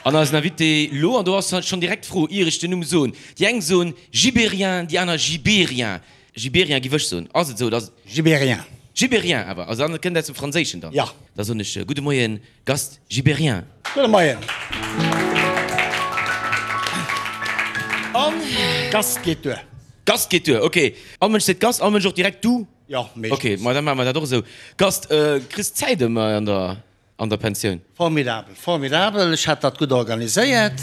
An eisen Invité lo, an do ass schonn direkt d'Fro, ier ech den Numm soen, déi eng soen Gibéryen, déi aner Gibérien. Gibéryen giff ech soen. Ass et esou oder ass et. Gibéryen. Gibéryen awer, also dann kënnt aus dem Franséischen dann. Jo. Da soen ech gudde Moien, Gast Gibéryen. Gudde Moien. An. Gast geet duer. Gast geet duer, ok. All Mënsch seet Gast, all Mënsch och direkt du? Jo, meeschtens. Ok, ma da maache mer dat och esou. Gast, kriss d'Zäit ëmmer an der. An der Pensioun? Formidabel, formidabel. Ech hat dat gutt organiséiert.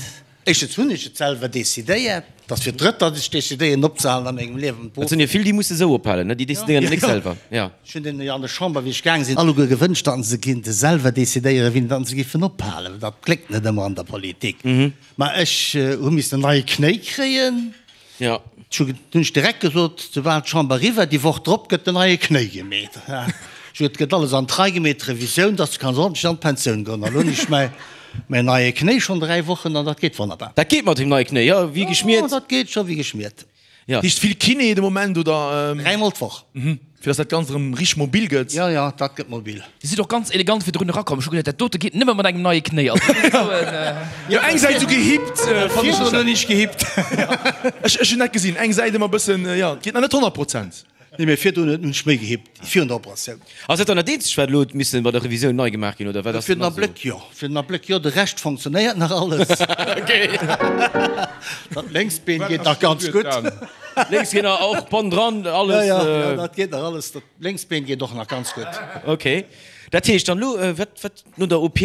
Éischtens hunn ech et selwer decidéiert. Et ass fir d'drëtt, datt ech decidéieren opzehalen a mengem Liewen. Et sinn jo vill, déi musse sou ophalen, ne? Déi decidéieren et nik selwer. Jo. Ech hunn deenen jo an der Chamber, wéi ech gaang sinn, alleguer gewënscht, datt se kinnte selwer decidéieren, wien datt se giffen ophalen. Dat gléckt net ëmmer an der Politik. Mä ech hu missen en neie Knéi kréien. Jo. Ech hunn ech direkt gesot, soubal d'Chamber eriwwer, déi Woch drop gëtt den neie Knéi gemeet. Ech hunn, et gëtt alles an d'Rei gemeet, d'Revisioun, dass du kanns ordentlech an d'Pensioun goen. An elo hunn ech mäi, mäin neie Knéi schonn 3 Wochen an dat geet wonnerbar. Dat geet mat deem neie Knéi, jo, wéi geschmiert. Jo, dat geet scho wéi geschmiert. Jo. Heescht vill Kiné de Moment, oder? Dräimol d'Woch. Fir dass dat Ganzt erëm richteg mobil gëtt. Jo, jo, dat gëtt mobil. Dir sidd och ganz elegant virdrun erakomm. Ech hu geduet, dat dote geet nëmme mat engem neie Knéi. Also dat ass esou en. Jo, eng Säit esou gehippt, fannen ech. Virdrun hunn ech gehippt. Ech, ech hunn dat gesinn, eng Säit ëmmer e bëssen, jo, et geet nach net 100%. Nee, mee virdrun hunn ech méi gehippt, virun der Operatioun. Ass dat dann dat eenzegt, wat elo huet missen bei der Revisioun nei gemaach ginn, oder wat ass Fir den nach esou? Abléck jo, fir den Abléck jo. De Rescht fonctionnéiert nach alles. Dat lénkst Been geet nach ganz gutt. Lénks geet nach och Bonn dran, alles. Jo, jo, dat geet nach alles. Dat lénkst Been geet och nach ganz gutt. Ok. Dat heescht dann elo, wat, wat no der OP,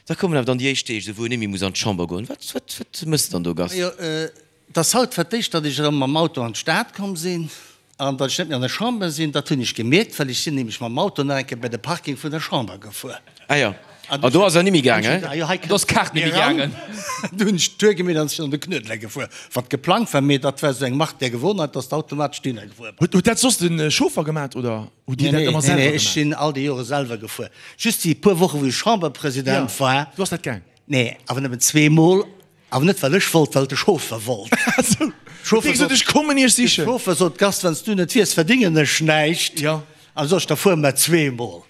da kommen awer dann déi éischt Deeg, esou wou een net méi muss an d'Chamber goen. Wat, wat, wat méchs de dann do, Gast? Jo, et ass haut fir d'éischt, datt ech erëm mam Auto an d'Stad komm sinn. An datt ech net méi an der Chamber sinn, dat hunn ech gemierkt, well ech sinn nämlech mam Auto nach eng Kéier bei de Parking vun der Chamber gefuer. Ah jo, an do ass er nimmi gaangen? Ah jo, hei Do ass d'Kaart nimmi gaangen. Du hunn ech d'Tour gemeet an sinn an de Knuedler gefuer, wat geplangt war, mee dat war esou eng Marque der Gewohnheit, datt s de automatesch dohinner gefuer bass. Huet dat soss de Chauffer gemat oder hutt Dir dat ëmmer Nee, selwer nee, ech gemat? sinn all déi Jore selwer gefuer. Just déi puer Woche wou ech Chamberpresident war. Do ass dat gaang? Nee, awer nëmmen zweemol. Awer net well ech wollt, well de Chauffer wollt. Chauffer sot, ech kommen iech sichen. De Chauffer sot, Gast, wann s du net wiers, verdingen ech näischt. Jo. An sot ech, da fuere mer zweemol.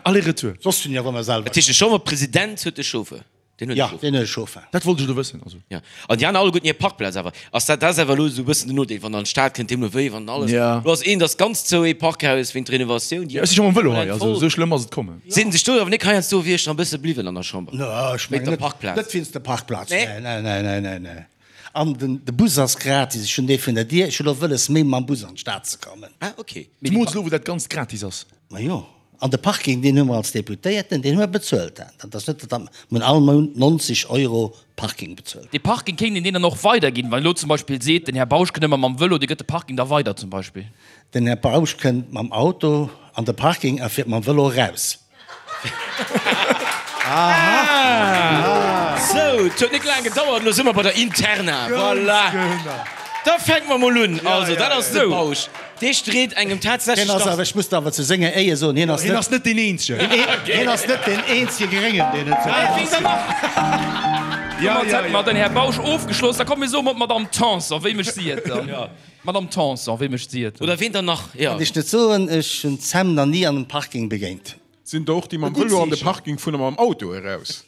Aller-retour. Soss hunn ech awer ëmmer selwer. Dat heescht, de Chamberpresident huet de Chauffer? Deen huet e Jo, Chauffer. deen huet e Chauffer. Dat wollt ech elo wëssen. Also. Jo. An déi aner alleguerten hir Parkplaz awer. Ass dat, dat ass awer elo esou e bëssen den Nodeel, wann an d'Stad kënnt, deemno wéi, wann alles. Jo. Elo ass eent ass ganz zou, ee Parkhaus wéint Renovatioun, déi Jo, ech si scho mam Vëlo hei, also esou schlëmm ass et kommen. Sinn sech do awer nik heiansdo wier ech nach e bësse bliwwen an der Chamber. No, ech Wéint mengen der net, Parkplaz. net wéinst der Parkplaz. Nee? Nee, nee, nee, nee, nee. An den, de Bus ass gratis. Ech hunn dee vun der Dier. Ech hunn och wëlles, méi mam Bus an d'Stad ze kommen. Ah, ok. Zemools elo, wou dat Ganzt gratis ass. Ma jo. An de Parking, deen hu mer als Deputéierten, deen hu mer bezuelt. Dat ass net, datt mer hunn all Mount 90 Euro Parking bezuelt. Dee Parking kéint een deen dann och weiderginn, wann elo zum Beispill seet, den Här Bausch kënnt ëmmer mam Vëlo, dee gëtt de Parking da weider zum Beispill. Den Här Bausch kënnt mam Auto an de Parking a fiert mam Vëlo eraus. Aha! Sou, et huet net laang gedauert, elo si mer bei der Interna. Voilà! Da fänke mer mol un. Also, dat ass de Bausch. Dee street engem tatsächlech Hien ass nach. awer, ech muss awer zu senger Éier soen, hien ass Hien net, ass net deen Eenzegen. hien ass net deen eenzege Gréngen, deen et sou Ween dann nach? Domat hätte mer den Här Bausch ofgeschloss. Da komme mir soe mat d'Madame Tanson. Wéi mécht si et dann? Madame Tanson, wéi mécht si et? Oder ween dann nach? Jo. Kann ech net soen, ech hunn d'Sam nach ni an einem Parking begéint. Sinn der och déi mam Vëlo an de Parking fueren a mam Auto eraus?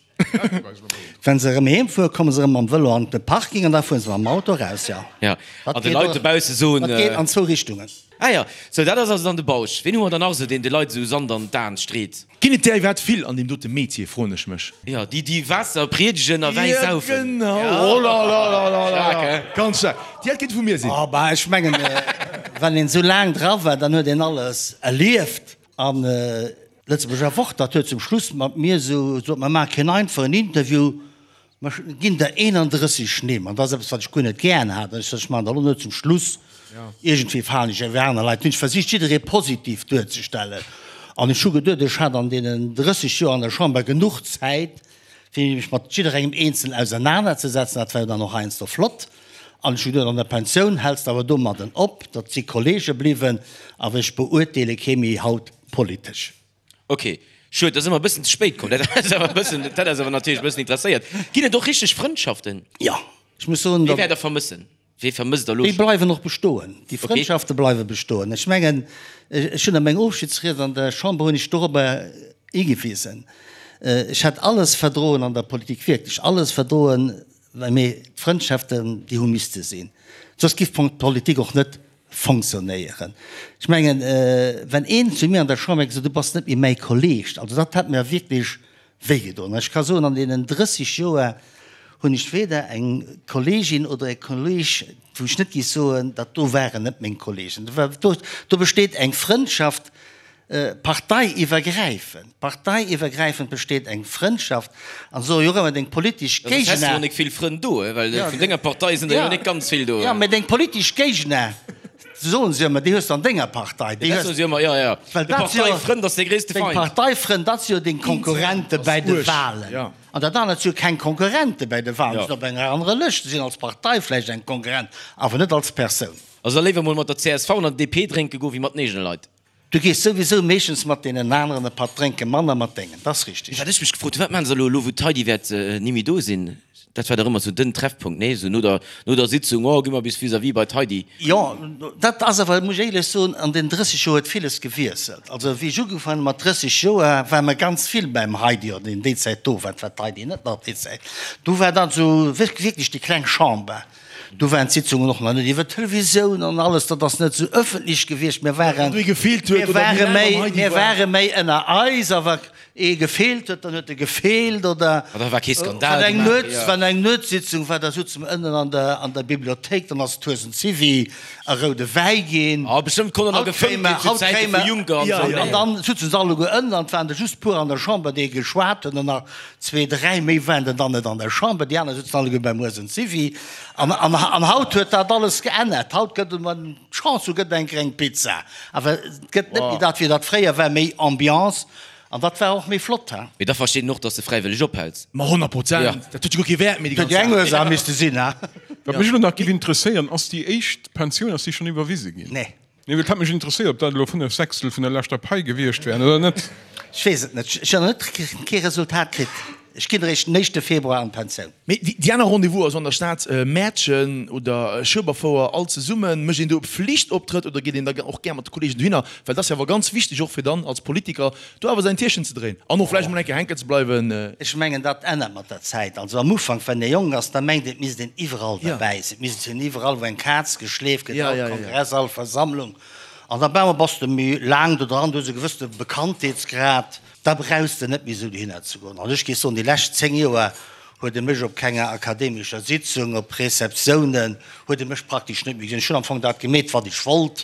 Wenn se erëm heem fueren, komme se erëm mam Vëlo an de Parking an da fuere se mam Auto eraus, jo. Jo, an de Leit dobausse soen. Dat geet an zwou Richtungen. Ah jo, sou dat ass also dann de Bausch. Ween hu mer dann nach esou, deen de Leit esou Sand an d'Aen street? Ginn et där iwwerhaapt vill an deem dote Metier, froen ech mech. Jo, déi déi Waasser priedegen a Wäi saufen. Jo, genau. Oh la la la la la. Staark, he? Ganz staark. Déi hätt kéinte vu mir sinn. Oh bah, ech mengen, wann een esou laang dra war, dann huet een alles erlieft. An Lëtzebuerger Wort, dat huet zum Schluss mat mir esou gesot, mer maache keen einfachen Interview, mer ginn der 31 Nimm. An dat ass eppes, wat ech guer net gären hat. An ech sot, ech maachen dat elo net zum Schluss, iergendwéi falen ech ewéi aner Leit. Hunn ech versicht, jidderee positiv duerzestellen. An ech hu geduet, ech hat an deenen 30 Joer an der Chamber genuch Zäit, fir mech mat jidderengem eenzel ausernanerzesetzen. Dat war jo dann och heiansdo flott. An ech hu geduet, an der Pensioun häls de awer domadden op. Dat si Kollege bliwwen, awer ech beurteele kee méi haut politesch. Ok, schued, da si mer e bëssen ze spéit komm. Dat ass awer e bëssen, dat hätt eis awer natierlech e bëssen interesséiert. Ginn et och richteg Frëndschaften? Jo, ech muss soen, Wee wäert Der vermëssen? Wee vermësst Der elo Déi schonn? bleiwen och bestoen. Déi Ok. Frëndschafte bleiwe bestoen. Ech mengen, ech hunn a mengem Ofschiedsried an der Chamber hunn ech dorobber higewisen. Ech hätt alles verdroen an der Politik, wierklech alles verdroen, mee d'Frëndschaften, déi hu misste sinn, soss giff d'Politik och net fonctionnéieren. Ech mengen, wenn een zu mir an der Chamber gesot, du bass net méi mäi Kolleg, also dat hätt mir wierklech wéigedoen. An ech ka soen, an deenen 30 Joer hunn ech weder eng Kollegin oder e Kolleg, wou ech net géif soen, dat do waren net meng Kollegen. Do besteet eng Frëndschaft Parteiiwwergräifend, parteiiwwergräifend besteet eng Frëndschaft an soe jo och ëmmer deng politesch Géigner. Soss häss de jo nik vill Frënn do, well vun denger Partei sinn der jo nik ganz vill do. Jo, mä deng politesch Géigner, soen se ëmmer, déi hues de an denger Partei. Déi hues. Dat soe se ëmmer, jo, jo. Well dat si jo. De Parteifrënd ass dee gréisste Feind. Deng Parteifrënn, dat si jo deng Konkurrente bäi de Wahlen. An dat anert si jo keng Konkurrente bäi de Wahlen, sinn op enger anerer Lëscht, sinn als Partei vläicht eng Konkurrent, awer net als Persoun. Also da léiwer mol mat der csv an der DP drénke goe wéi mat den eegene Leit. Du gees souwisou meeschtens mat deenen aneren e Patt drénken, manner mat dengen, dat ass richteg. Wat ech mech gefrot hunn, wat maachen se elo, elo wou d'Heidi wäert ni méi do sinn? Dat war dach ëmmer sou den Treffpunkt, nee? Sou no der, no der Sitzung, oh, gi mer bis vis-à-vis bei d'Heidi. Jo, dat ass awer, muss ech éierlech soen, an den 30 Joer huet villes gewiesselt. Also wéi ech ugefaangen hu mat 30 Joer, ware mer ganz vill beim Heidi, oder déi Zäit do war, war d'Heidi net nach déi Zäit. Do war dann sou wierklech déi kleng Chamber. Do waren d'Sitzungen och nach net iwwer d'Televisioun an alles, dat ass net esou ëffentlech gewiescht. Mir waren, mir ware méi, mir ware méi ënner eis a wa ee gefeelt huet, dann huet e gefeelt oder wann eng Nuets, wann eng Nuetssitzung war, da souze mer ënnen an der, an der Bibliothéik, dann ass d'Huesen Zivi a roude Wäi ginn. Haut kréie mer, haut kréie mer, an dann souzen se alleguer ënnen an et waren der just puer an der Chamber, déi geschwat hunn an nach Zwee, dräi méi waren der dann net an der Chamber, déi aner sitzen alleguer beim Huesen Zivi. An, an, an haut huet dat alles geännert. Haut gëtt et, wann d'Chance hu gëtt eng gréng Pizza. Awer et gëtt net méi dat, wéi dat fréier war, méi Ambiance. An dat war och méi flott, he. Mee da versteet een och, dass de fräiwëlleg ophäls. Ma 100 Prozent! Dat huet jo guer kee Wäert méi, déi ganz Huet jo eng Saach. Ursaach misste sinn, he. Wat mech elo nach giff interesséieren, ass déi éischt Pensioun, ass déi schonn iwwerwise ginn? Nee. Nee, well et hätt mech interesséiert, ob dat elo 5 Sechstel vun der leschter Pai gewiescht wären oder net. Ech weess et net. Ech hunn nach net kee Resultat kritt. Ech ginn eréischt den éischte Februar an d'Pensioun. Mee déi aner Rendez-vous, also an der Stad Mäertchen oder Schueberfouer, all zesummen, mécht een do e Pflichtoptrëtt oder geet een da och gär mat de Kollegen dohinner? Well dat ass jo awer ganz wichteg och fir dann als Politiker do awer säin Tierchen ze dréien an och vläicht emol eng Kéier hänken ze bleiwen. Ech mengen, dat ännert mat der Zäit. Also am Ufank, wann ee jonk ass, da mengt een, et misst een iwwerall derbäi sinn, et misst een iwwerall, wou eng Kaz geschleeft gëtt, all Kongress, all Versammlung. An da bam bass de méi laang do dran, du hues e gewëssene Bekanntheetsgrad, da brauchs de net méi esou dohinner ze goen. An ech géif soen, déi lescht 10 Joer huet e mech op kenger akademescher Sitzung, op Receptiounen, huet e mech praktesch net méi gesinn. Ech hunn am Fong dat gemeet, wat ech wollt,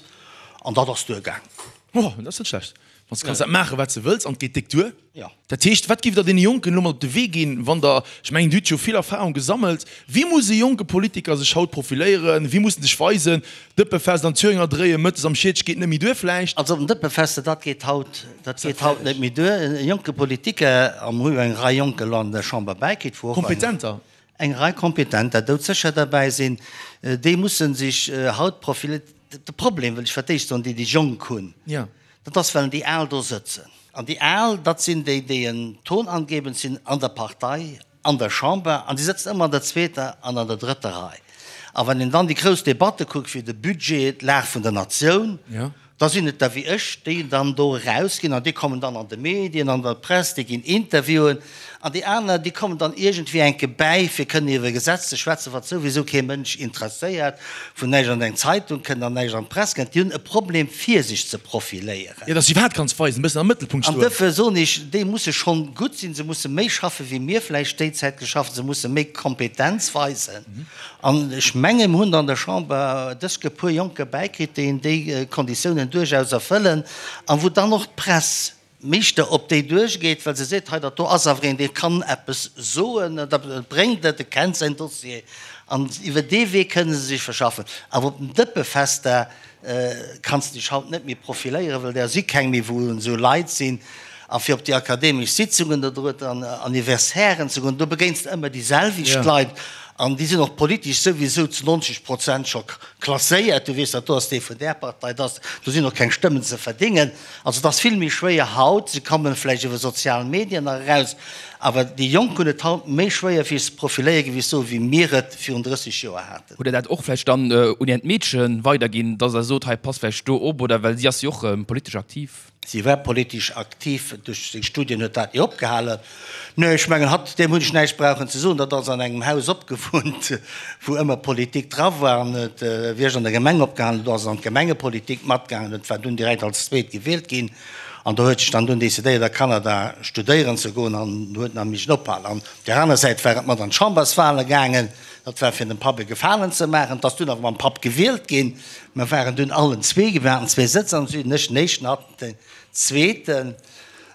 an dat ass duergaang. Oh, dat ass net schlecht. Wann s de kanns dat maachen, wat s de wëlls, an et geet déck duer. Jo. Dat heescht, wat giff Der deene Jonken elo mat op de Wee ginn, wann Der, ech mengen, Dir hutt jo vill Erfahrung gesammelt, wéi muss e jonke Politiker sech haut profiléieren, wéi muss en sech weisen? Dëppefest an Thüringer dréien, mëttes am Schietsch geet net méi duer vläicht? Also op den Dëppefester, dat geet haut, dat geet haut net méi duer. E jonke Politiker, a mer hu jo eng Rei Jonk elo an der Chamber bäikritt, wou och eng. Kompetenter. Eng Rei Kompetenter doudsécher derbäi sinn, déi musse sech haut profiléieren. De Problem, wëll ech fir d'éischt soen, déi déi Jonk hunn, dat ass, well déi Al do sëtzen. An déi Al, dat sinn déi, déi en tonangebend sinn an der Partei, an der Chamber, an déi sëtzen ëmmer an der zweeter an an der drëtter Rei. A wann een dann déi grouss Debatte kuckt, wéi de Budget, d'Lag vun der Natioun, Da sinn et der wéi ech, déi dann do erausginn an déi kommen dann an de Medien, an der Press, déi ginn Interviewen an déi aner, déi kommen dann iergendwéi enke bäi, fir kënnen iwwer e Gesetz ze schwätzen, wat souwisou kee Mënsch interesséiert, wou näischt an eng Zeitung kënnt an näischt an d'Press kënnt. Déi hunn e Problem, fir sech ze profiléieren. Jo, dass se iwwerhaapt kanns weisen, e bëssen am Mëttelpunkt stoen. An duerfir soen ech, déi musse schonn gutt sinn, se musse méi schaffe wéi mir vläicht déi Zäit geschafft hunn, se musse méi Kompetenz weisen. An ech mengen, mir hunn an der Chamber dësg e puer Jonker bäikritt, déi déi Konditiounen duerchaus erfëllen a wou dann och d'Press meeschter op déi duerchgeet, well se seet, hei dat do ass awer een, dee kann eppes soen, dat bréngt et, e kennt säin Dossier. An iwwer dee Wee kënne se sech verschaffen. Awer op den Dëppefester kanns de dech haut net méi profiléieren, well der si keng méi, wou esou Leit sinn. A fir op déi akademesch Sitzungen oder oder Anniversairen ze goen, do begéins de ëmmer déi selwecht Leit an déi sinn och politesch souwisou zu 90 Prozent scho klasséiert. Du weess, dat do ass dee vun där Partei, dat ass, do sinn och keng Stëmmen ze verdéngen. Also et ass vill méi schwéier haut. Se komme vläicht iwwer sozial Medien nach eraus, awer déi Jonk hunn et haut méi schwéier fir sech ze profiléieren, wéi ech soen, wéi mir et virun 30 Joer haten. Hutt Der dat och vläicht dann un Äert Meedche weiderginn, dass Der sot, hei passt vläicht do op, oder well si ass jo och politesch aktiv? Si war politesch aktiv, duerch seng Studien huet dat ni opgehalen. Nee, ech mengen, hatt, deem hunn ech näischt brauchen ze soen, dat ass an engem Haus opgewunnt, wou ëmmer Politik dra war an huet, wéi ech an der Gemeng opgehalen hunn, do ass en an d'Gemengepolitik matgaangen, huet war dunn direkt als Zweet gewielt ginn an do huet sech dann dunn decidéiert a Kanada studéieren ze goen an huet nach missen ophalen. An op där aner Säit war et mat an d'Chamberswale gaangen, dat war fir dem Papp e Gefalen ze maachen, 't ass dunn awer mam Papp gewielt ginn. Mer waren dunn allen zwee, mir haten zwee Sëtz am Süden, ech den éischten, hatt den zweeten.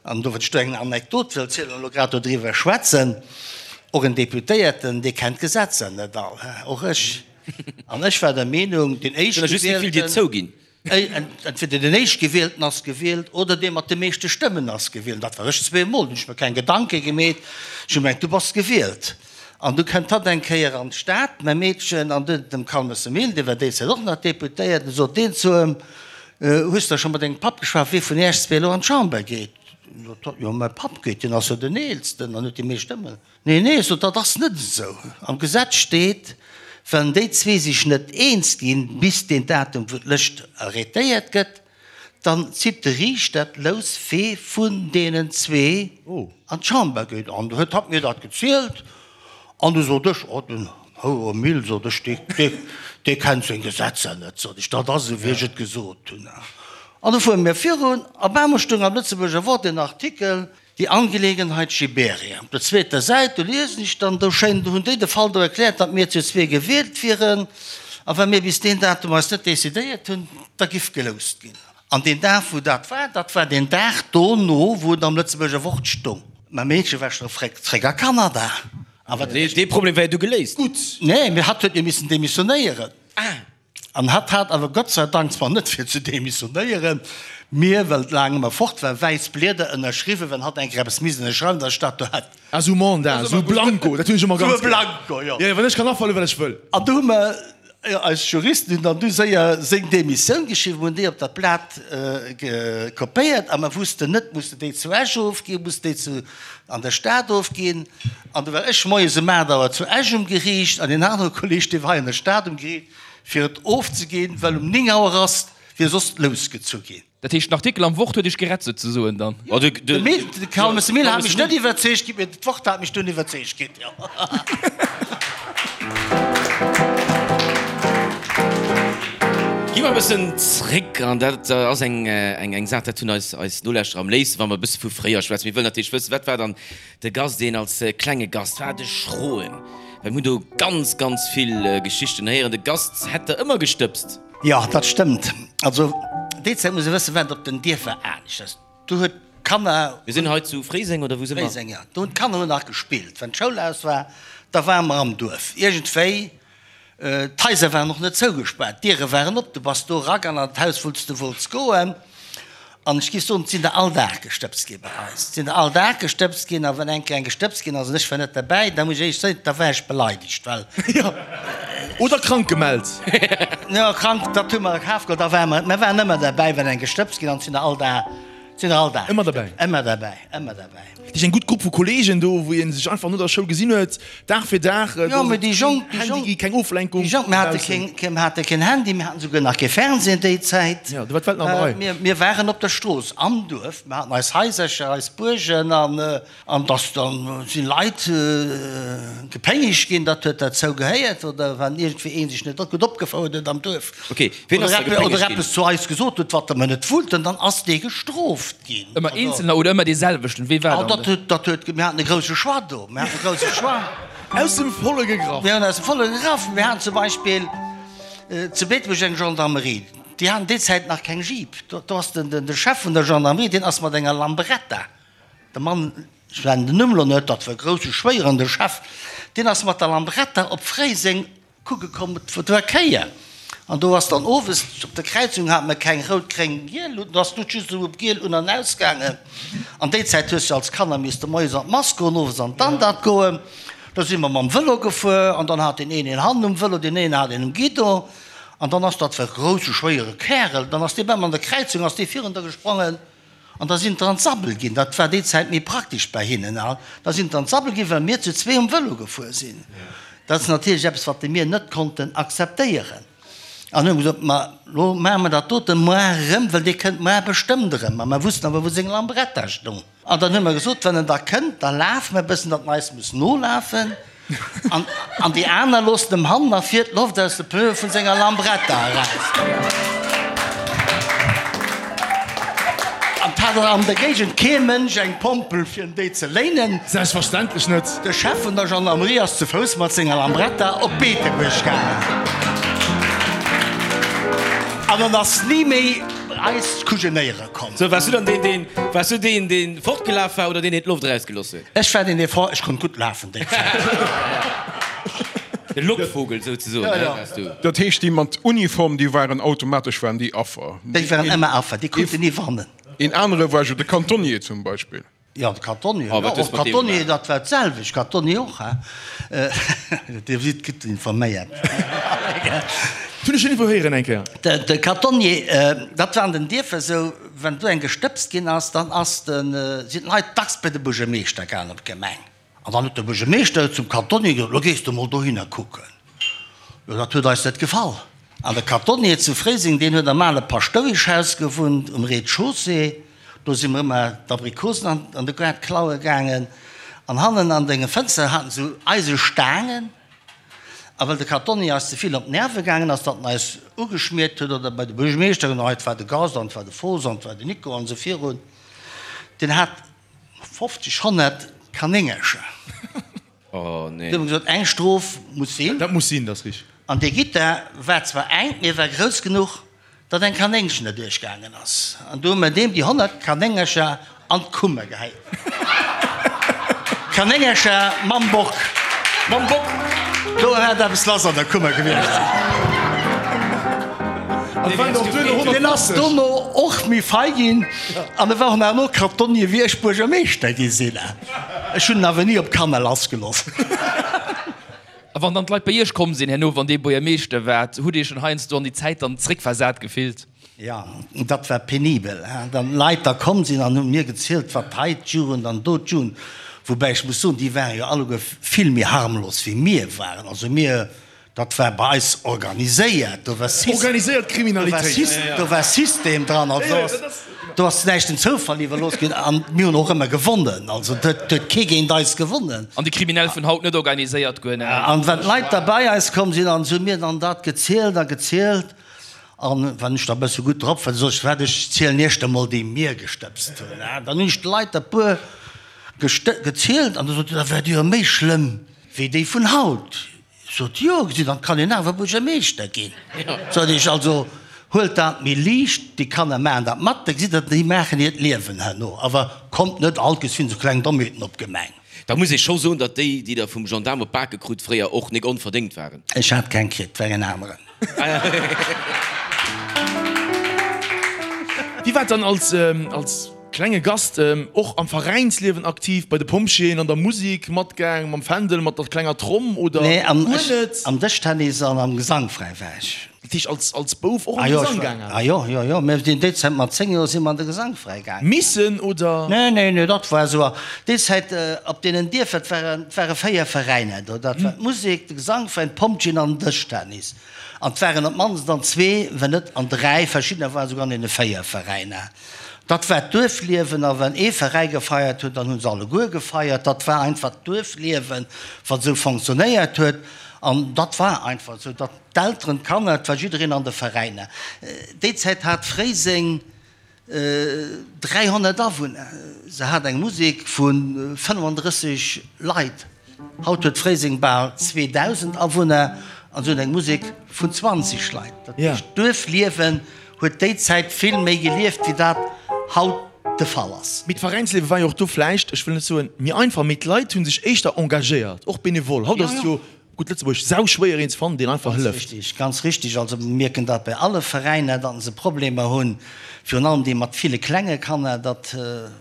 An do, wann ech do eng Anekdot wëll zielen an elo grad dodriwwer schwätzen, och en Deputéierten, dee kennt d'Gesetzer net all, och ech. An ech war der Meenung, deen Éischtgewielten, entweder den Éischtgewielten ass gewielt oder dee mat de meeschte Stëmmen ass gewielt. Dat war ech zweemol, do hunn ech mer keng Gedanke gemeet, ech hu gemengt, du bass gewielt. An du kënnt hatt eng Kéier an d'Stad, mäi Meedchen, an du dem Calmes Emile, dee war déi Zäit och nach Deputéierten, du sot deen zu em, Hues de scho mat dengem Papp geschwat, wee vun iech zwee elo an d'Chamber geet? Sot hatt, Jo, mäi Papp geet, deen ass jo den Eelsten an huet déi meescht Stëmmen. Nee, nee, sot hatt, dat ass net esou. Am Gesetz steet, wann déi zwee sech net eens ginn, bis deen Datum, wou d'Lëscht arrêtéiert gëtt, Dann zitt de Riichter d'Lous wee vun deenen zwee an d'Chamber geet. An du huet hatt mir dat gezielt an du sot ech, Oh, den Houer Mille, sot ech, dee, dee kennt seng Gesetzer net, sot ech, dat ass esou wéi ech et gesot hunn. An du fuere mir virun, a bemol stoung am Lëtzebuerger Wort en Artikel, Die Angelegenheit Giberia. Op der zweeter Säit, do liesen ech dann, do schéin, do hunn déi de Fall do erkläert, datt mir zu zwee gewielt wieren, a wa mir bis deen Datum eis net decidéiert hunn, da giff geloust ginn. An deen Dag, wou dat war, dat war deen Dag dono, wou et am Lëtzebuerger Wort stung. Mä Meedche war scho fréck zréck a Kanada. A wat. Dee Problem war jo du geléist. Gutt. Nee, mee hatt huet jo missen demissionéieren. Ah. An hatt hat awer Gott sei Dank, zwar net fir ze demissionéieren, mir, well et laang ëmmer fort war, wäiss Blieder ënnerschriwwen, wann hatt eng Kéier eppes misst ënnerschreiwen, datt ech dat do hätt. Ah, sou Mandat, sou Blanco, dat hunn ech ëmmer ganz gär. Sou e Blanco, jo. Jo, wann ech kann afale wat ech wëll. An do hu mer, eis Juristen hunn dann du séier seng Demissioun geschriwwen, hunn déi op dat Blat kopéiert a mer wussten net, musse déi zu Esch ofginn, musse déi zu an der Stad ofginn. An du war ech moies um 8 Auer zu Esch um Geriicht an deen anere Kolleg, dee war hei an der Stad um Geriicht, fir et ofzeginn, well um 9 Auer ass wier soss d'Lous gezu ginn. Dat heescht, den Artikel am Wort huet Iech gerett souzesoen dann? De Calmes Emile hat mech net iwwerzeegt ginn, mee d'Wort hat mech dunn iwwerzeegt ginn, jo. Gi mer e bëssen zréck, an dat ass eng Saach, dat hunn eis Nolauschterer am léifsten, wa mer e bësse vu fréier schwätzen. Mir wëllen natierlech wëssen, wat war dann De Gast, deen als klenge Gast war, de Schroen, well mir hunn do ganz, ganz vill Geschichten héieren. De Gast hätt der ëmmer gestëbst. Jo, dat stëmmt. Also déi Zäit, muss ee wëssen, war et op den Dierfer aneschters. Do huet d'Kanner. Mir sinn hei zu Fréiseng, oder wou si mer? Fréiseng, jo. Do hunn d'Kanner hunn nach gespillt. Wann d'Schoul aus war, da ware mer am Duerf. Iergendwéi D'Haiser waren och net zougespaart, d'Diere waren op, du bass do eragaang an d'Haus, wou s de wollts goen. An ech géif soen, et sinn der all Dag gestëbst gi bei eis. Et sinn der all Dag gestëbst ginn. A wann eng Kéier eng gestëbst ginn ass an ech war net derbäi, da muss ech éierlech soen, da war ech beleidegt, well. Jo, oder krank gemellt. Jo, krank, dat hu mer a Kaf geholl, da ware mer, mer waren ëmmer derbäi, wann eng gestëbst ginn ass. Et sinn der all Dag, et sinn der all Dag Ëmmer derbäi. Ëmmer derbäi, ëmmer derbäi. Dat ass eng gutt Grupp vu Kolleegen do, wou ee sech einfach no der Schoul gesinn huet, Dag fir Dag. Jo, mee déi Jonk, déi Jonk, keng Oflenkung. Déi Jonk, mir hate keen, mir hate keen Handy, mir haten souguer nach kee Fernsehen déi Zäit. Jo, do war d'Welt nach an der Rei. Mir, mir waren op der Strooss, am Duerf, mir haten eis Haisercher, eis Buergen an, an dass dann si Leit gepéngegt ginn, dat huet derzou gehéiert, oder wann iergendwéi ee sech net gutt opgefouert huet am Duerf. Ok, ween ass da gepéngegt ginn? Oder eppes zu eis gesot huet, wat mer net wollten, dann ass dee gestrooft ginn. Ëmmer eenzelner oder ëmmer dee selwechten? Wee war dann de? Dat huet, mir haten e grousse Choix do, mir haten e grousse Choix. Aus dem Volle gegraff. Mir hunn aus dem Volle gegraff. Mir haten zum Beispill zu Beetebuerg eng Gendarmerie, déi haten déi Zäit nach keng Jeep. Do ass de Chef vun der Gendarmerie, deen ass mat enger Lambretta, de Mann, ech nennen den Numm elo net, dat war e grousse Schwéieren, de Chef, deen ass mat der Lambretta op Fréiseng Kucke komm, et war Kéier an do ass dann owes op der Kräizung hate mer keng rout, gréng, giel Luuten, do ass d'Lut just esou op giel un an aus gaangen. An déi Zäit hues du als Kanner misste moies an d'Mass goen, owes an d'Andert goen. Da si mer mam Vëlo gefuer an dann hat deen een een hannen um Vëlo, deen een hat een um Guidon an dann ass dat war e grousse schwéiere Kärel, dann ass dee bam an der Kräizung ass dee virun der gesprongen. An da sinn d'er an d'Sabbel ginn, dat war déi Zäit méi praktesch bei hinnen, a da sinn d'er an d'Sabbel ginn, well mir zu zwee um Vëlo gefuer sinn. Dat ass natierlech eppes, wat mir net konnten akzeptéieren. An hu gesot, Ma lo maache mer dat dote moar erëm, well dee kënnt moar bestëmmt erëm. A mer wussten awer, wou seng Lambretta stoung. An dann hu mer gesot, Wann en da kënnt, da lafe mer e bëssen, datt en eis muss nolafen. An, an déi aner loossen em hannen a vir d'Loft aus de Pneue vun senger Lambretta eraus. An 't hat an der Géigend kee Mënsch eng Pompel fir en déi ze léinen. Selbstverständlech net. De Chef vun der Gendarmerie ass zu Fouss mat senger Lambretta op Beetebuerg gaangen. An en ass ni méi eis kujenéiere komm. Sou, waars du dann deen, deen, waars du deen, deen fortgelaf war oder deen, deen d'Loft erausgelooss huet? Ech war deen, dee fort, ech konnt gutt lafen déi Zäit. De Lockvogel souzesoen, Ja, ja. waars du. Dat heescht, déi mat Uniform, déi waren automatesch waren déi Affer. Déi waren ëmmer Affer, déi konnten ni wannen. Een anere war jo de Cantonnier zum Beispill. Jo, de Cantonnier, Oh, jo, wat hues och de mat deem Cantonnier, gemaach? dat war d'selwecht, Cantonnier och, hein. Dir sidd gutt informéiert. Hunn ech iergendwou héieren eng Kéier. De Cantonnier, dat war an den Dierfer esou, wann do eng gestëbst ginn ass, dann ass de, sinn d'Leit dacks bei de Buergermeeschter gaangen op d'Gemeng. An dann huet de Buergermeeschter zum Cantonnier gesot, Lo gees de mol dohinner kucken. Jo, dat huet eis net gefall. An de Cantonnier zu Fréiseng, deen huet am ale Paschtoueschhaus gewunnt, um Rez-de-chaussée. Do si mer ëmmer d'Abrikosen an de Gaart klaue gaangen. An hannen an denge Fënster haten se eise Staangen. A well de Cantonnier eis ze vill op d'Nerve gaangen ass, datt en eis ugeschmiert huet, oder bei de Buergermeeschter, an hei war de Gast, an et war de Fos, an et war de Nico, an esou virun, deen hat 50, 100 Kanéngercher. Oh nee. Du hu mer gesot, eng Strof muss sinn. Dat muss sinn, dat ass richtig. An dee Gitter war zwar enk, mee e war grouss genuch, datt eng Kanéngchen derduerch gaangen ass. An du hu mer deem déi 100 Kanéngercher an d'Kummer gehäit. Kanéngercher mam Bock. Mam Bock! Do hätt eppes lass an der Kummer gewiescht sinn. Deen ass dono och méi fei ginn an e war och nach elo Kartonnier, wéi ech Buergermeeschter gi sinn. Ech hunn en awer ni op d'Kanner lassgelooss. A wann dann d'Leit bei Iech komm sinn herno, wann Dir Buergermeeschter waart, hutt Dir Iech schonn heiansdo an déi Zäit dann zréckversat gefillt? Jo, dat war penibel. Dann Leit da komm sinn an hunn mir gezielt, wat hei d'Jugend an do d'Jugend, woubäi ech muss soen, déi ware jo alleguer vill méi harmlos wéi mir waren. Also mir Dat war bei eis organiséiert, do war System, Organiséiert Kriminalitéit. do war System dran, also do ass, do ass näischt dem Zoufall iwwerlooss ginn an mir hunn och ëmmer gewonnen, also do huet kee géint eis gewonnen. An déi Kriminell vun haut net organiséiert, guer net. An wann d'Leit da bei eis komm sinn, an se hu mir dann dat gezielt a gezielt an wann ech da e bësse gutt drop war, da sot ech, Waart, ech zielen iech da mol déi mir gestëbst hunn. Dann hunn ech de Leit der puer gezielt an da sot se, Da waart Dir jo méi schlëmm wéi déi vun haut. Sot, Jo, gesitt, dann kann een awer Buergermeeschter ginn. Sot ech, Also huelt dat méi liicht, déi Kanner maachen dat mat, da gesitt Der, déi maachen hiert Liewen herno. Awer kommt net all geschwinn esou kleng Dommheeten op d'Gemeng. Da muss ee scho soen, datt déi, déi Der vum Gendaarm op d'Bake krut, fréier och nik onverdéngt waren. Ech hat keng kritt, war en aneren. Wie war dann als, als. Klenge Gast, och am Veräinsliewen aktiv, bei de Pompjeeën, an der Musik matgaang, mam Fändel, mat der klenger Tromm oder Nee, am, guer net? am Dëschtennis an am Gesangfräi war ech. Dat heescht als, als Bouf och an de Gesang gaangen? Ah jo, jo, jo, mir sinn déi Zäit mat 10 Joer si mer an de Gesangfräi gaangen. Missen oder? Nee, nee, nee, dat war esou. Déi Zäit op deenen Dierfer, et waren, et ware 4 Veräiner do, dat war d'Musek, de Gesangveräin, d'Pompjeeën an den Dëschtennis. An et waren op d'mannst an zwee, wenn net an dräi, verschiddener waren esouguer an deene 4 Veräiner. Dat war d'Duerfliewen a wann ee Veräi gefeiert huet, dann hu se alleguer gefeiert. Dat war einfach d'Duerfliewen, wat esou fonctionnéiert huet. An dat war einfach esou, datt d'Elteren, d'Kanner, et war jiddereen an de Veräiner. Déi Zäit hat Fréiseng 300 Awunner. Se hat eng Musek vu 35 Leit. Haut huet Fréiseng bal 2.000 Awunner an se hunn eng Musek vun 20 Leit. Dat heescht, d'Duerfliewen huet déi Zäit vill méi gelieft, wéi dat haut de Fall ass. Mee d'Veräinsliewe war jo och do vläicht, ech wëll net soen méi einfach, mee d'Leit hu sech éischter engagéiert, och benevol. Haut ass et jo, gutt Lëtzebuerg, sauschwéier een ze fannen, deen einfach Ganz hëlleft. richtig, ganz richtig. Also mir mierken dat bei alle Veräiner, datt se Problemer hunn, virun allem déi mat ville klenge Kanner. Dat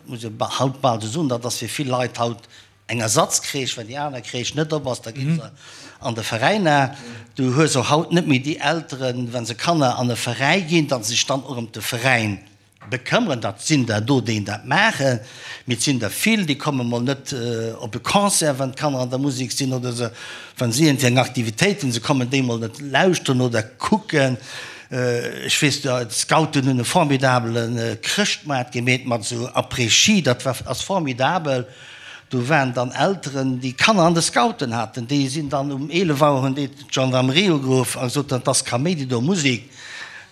muss ee haut bal esou soen, dat ass fir vill Leit haut Eng Ersatzcrèche, well déi aner Crèche net op ass, da gi se an de Veräin. Du hues och haut net méi déi Elteren, wa se Kanner an e Veräi ginn, datt se sech dann och ëm de Veräin Bekëmmeren. Dat sinn der do, déi dat maachen, mee et sinn der vill, déi komme mol net op e Concert, wann d'Kanner an der Musek sinn, oder se, wa si iergendwéi eng Aktivitéit hunn, se kommen déi mol net lauschteren oder kucken. Ech weess, d'Scouten hunn e formidabele Chrëschtmaart gemeet mat esou Après-Ski, dat war, ass formidabel. Do waren dann Elteren, déi Kanner an de Scouten haten, déi sinn dann um 11 Auer hunn déi d'Gendarmerie ugeruff a gesot, dat ass Kaméidi do, Musek.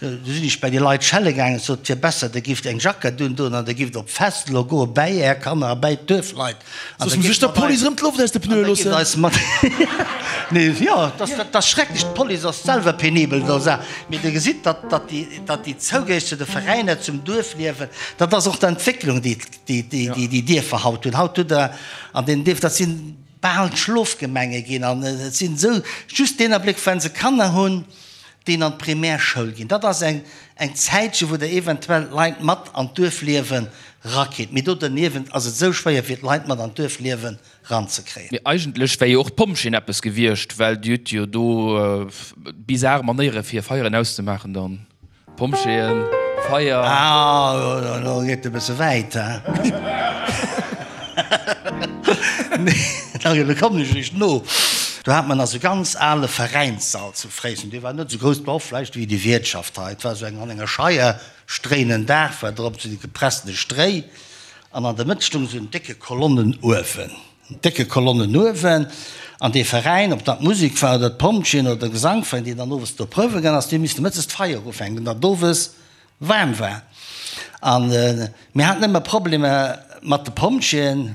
Du sinn ech bei déi Leit schelle gaangen, sot, et wier besser, der gifft eng Jackett undoen an der gifft op d'Fest elo goe bäi är Kanner a bäi d'Duerfleit. An Soss muss ech der Police erëm d'Loft aus de Pneue loossen. Eis mat, nee, jo, dat ass schrecklech, d'Police ass selwer penibel do, mee Dir gesitt, datt, datt déi, datt déi Zougéieg zu de Veräiner, zum Duerfliewen, dat ass och d'Entwécklung, déi, déi, déi, déi déi Dierfer haut hunn. Haut hutt Der an deenen Dierfer, dat si bal Schlofgemenge ginn an et sinn esou just deen Abléck, wa se Kanner hunn, déi an d'Primärschoul ginn. Dat ass eng eng Zäitche wou Der eventuell d'Leit mat an d'Duerfliewen rakritt. Mee do derniewent ass et esou schwéier fir d'Leit mat an d'Duerfliewen ranzekréien. Mee eigentlech wär jo och d'Pompjeeën eppes gewiescht, well Dir hutt jo do bizar Manéiere fir Feieren auszemaachen dann. Pompjeeën, Feier. Ah, elo geet e bësse wäit, he? Nee, elo kommen ech eréischt no. Do hat mer nach esou ganz ale Veräinssall zu Fréiseng. Dee war net esou grouss, war och vläicht wéi déi Wiertschaft hei. Et war esou eng an enger Scheier, stréinen Daach war drop, esou déi gepressene Stréi. An an der Mëtt stoung esou en décke Kolonnenuewen. Décke Kolonnen uewen, an dee Veräin, ob dat d'Musek war oder d'Pompjeeën oder de Gesangveräin, deen dann owes do prouwe gaang ass, déi hu misste mëttes d'Feier ufänken, datt owes waarm war. A mir haten ëmmer Problemer mat de Pompjeeën,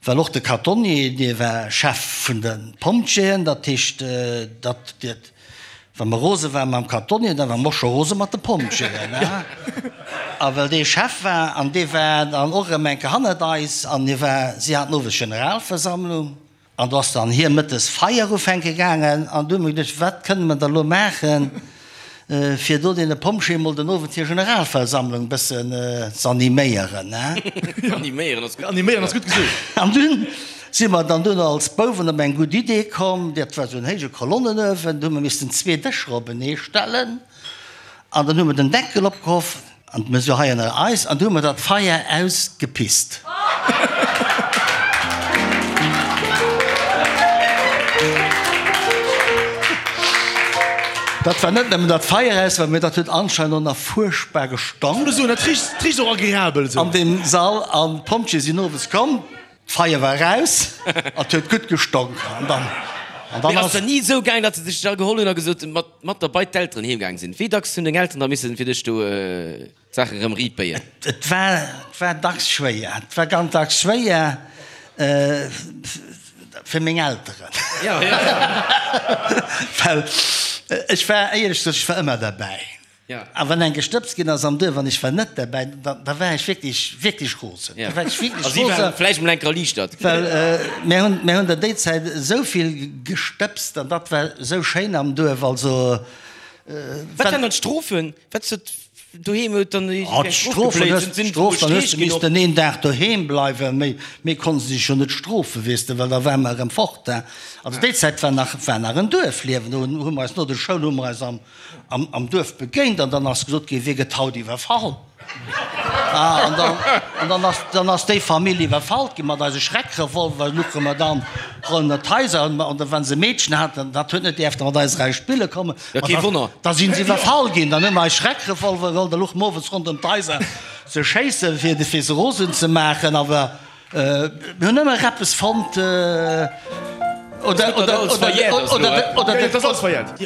well och de Katonnier, dee war Chef vun de Pompjeeën, dat heescht, datt Wa mer rose ware mam Kartonnier, da ware mer och scho rose mat de Pompjeeën. A well dee Chef war, an dee war dann och erëm eng Kéier hannert eis, an hie war, si haten owes Generalversammlung, an do ass dann hie mëttes Feier ufänke gaangen, an du hu mer geduecht, wat kënne mer da lo maachen, fir do deene Pompjeeë mol den Owend hir Generalversammlung e bëssen z'animéieren. Animéieren ass gutt. Animéieren ass gutt gesot. An dunn Si mer dann duerno als Bouwen op eng gutt Idee komm, dat war esou en héije Kolonnenuewen, do hu mer missten zwee Dëscher openee stellen an dann hu mer den Deckel opgehoff an d'Mesure hei ënner eis an du hu mer dat Feier ausgepisst. Dat war net nëmmen dat Feier aus war, mee dat huet anscheinend och nach fuerchtbar gestonk. Dat richt och agreabel esou. An deem Sall an d'Pompjeeë sinn owes komm. D'Feier war eraus an et huet gutt gestonk. An dann, an dann ass. Mee ass et ni esou gaang, datt se dech da geholl hunn a gesot hunn, mat, mat der bei d'Elteren heem gaang sinn? Wéi dacks hunn deng Elteren da missen fir dech do d'Saache rëm riit béien? Et war, et war dacks schwéier. Et war ganz dacks schwéier fir meng Elteren. Jo, jo. Well ech war, éierlech gesot, ech war ëmmer derbäi. A wann eng gestëbst ginn ass am Duerf an ech war net derbäi, da war ech wierklech, wierklech rosen. Da war ech wierklech A si rosen. waren vläicht emol enker erliichtert. Well mir hunn, mir hunn der déi Zäit esou vill gestëbst an dat war esou schéin am Duerf. Also, Wat waren dann d'Strofen? Wat huet doheem huet dann Oh, eng Strof d'Strofen, gebléit? Sinn, sinn d'Strof, dann hues Streech de ginn och? missten een Dag doheem bleiwen. Méi, méi konnte se sech jo net strofen, weess de, well da ware mer erëm fort. Also déi Zäit war nach, war nach en Duerfliewen. Do hu mer eis no der Schoul hu mer eis am, am Duerf begéint an dann ass gesot ginn, wie gëtt haut iwwerfall? An dann, an dann ass, dann ass déi Famill iwwerfallt ginn mat eise Schreckrevolver, luche mer dann ronderëm d'Haiser an an wa se e Meedchen haten, dat huet net däerfte mat eis eraus spille kommen, Ja, kee Wonner. da sinn se iwwerfall ginn, dann hu mer eis Schreckrevolver geholl, da luche mer owes ronderëm d'Haiser ze schéissen, fir, fir se rosen ze maachen, awer. Mir hunn ëmmer eppes fonnt, oder, oder, oder, oder,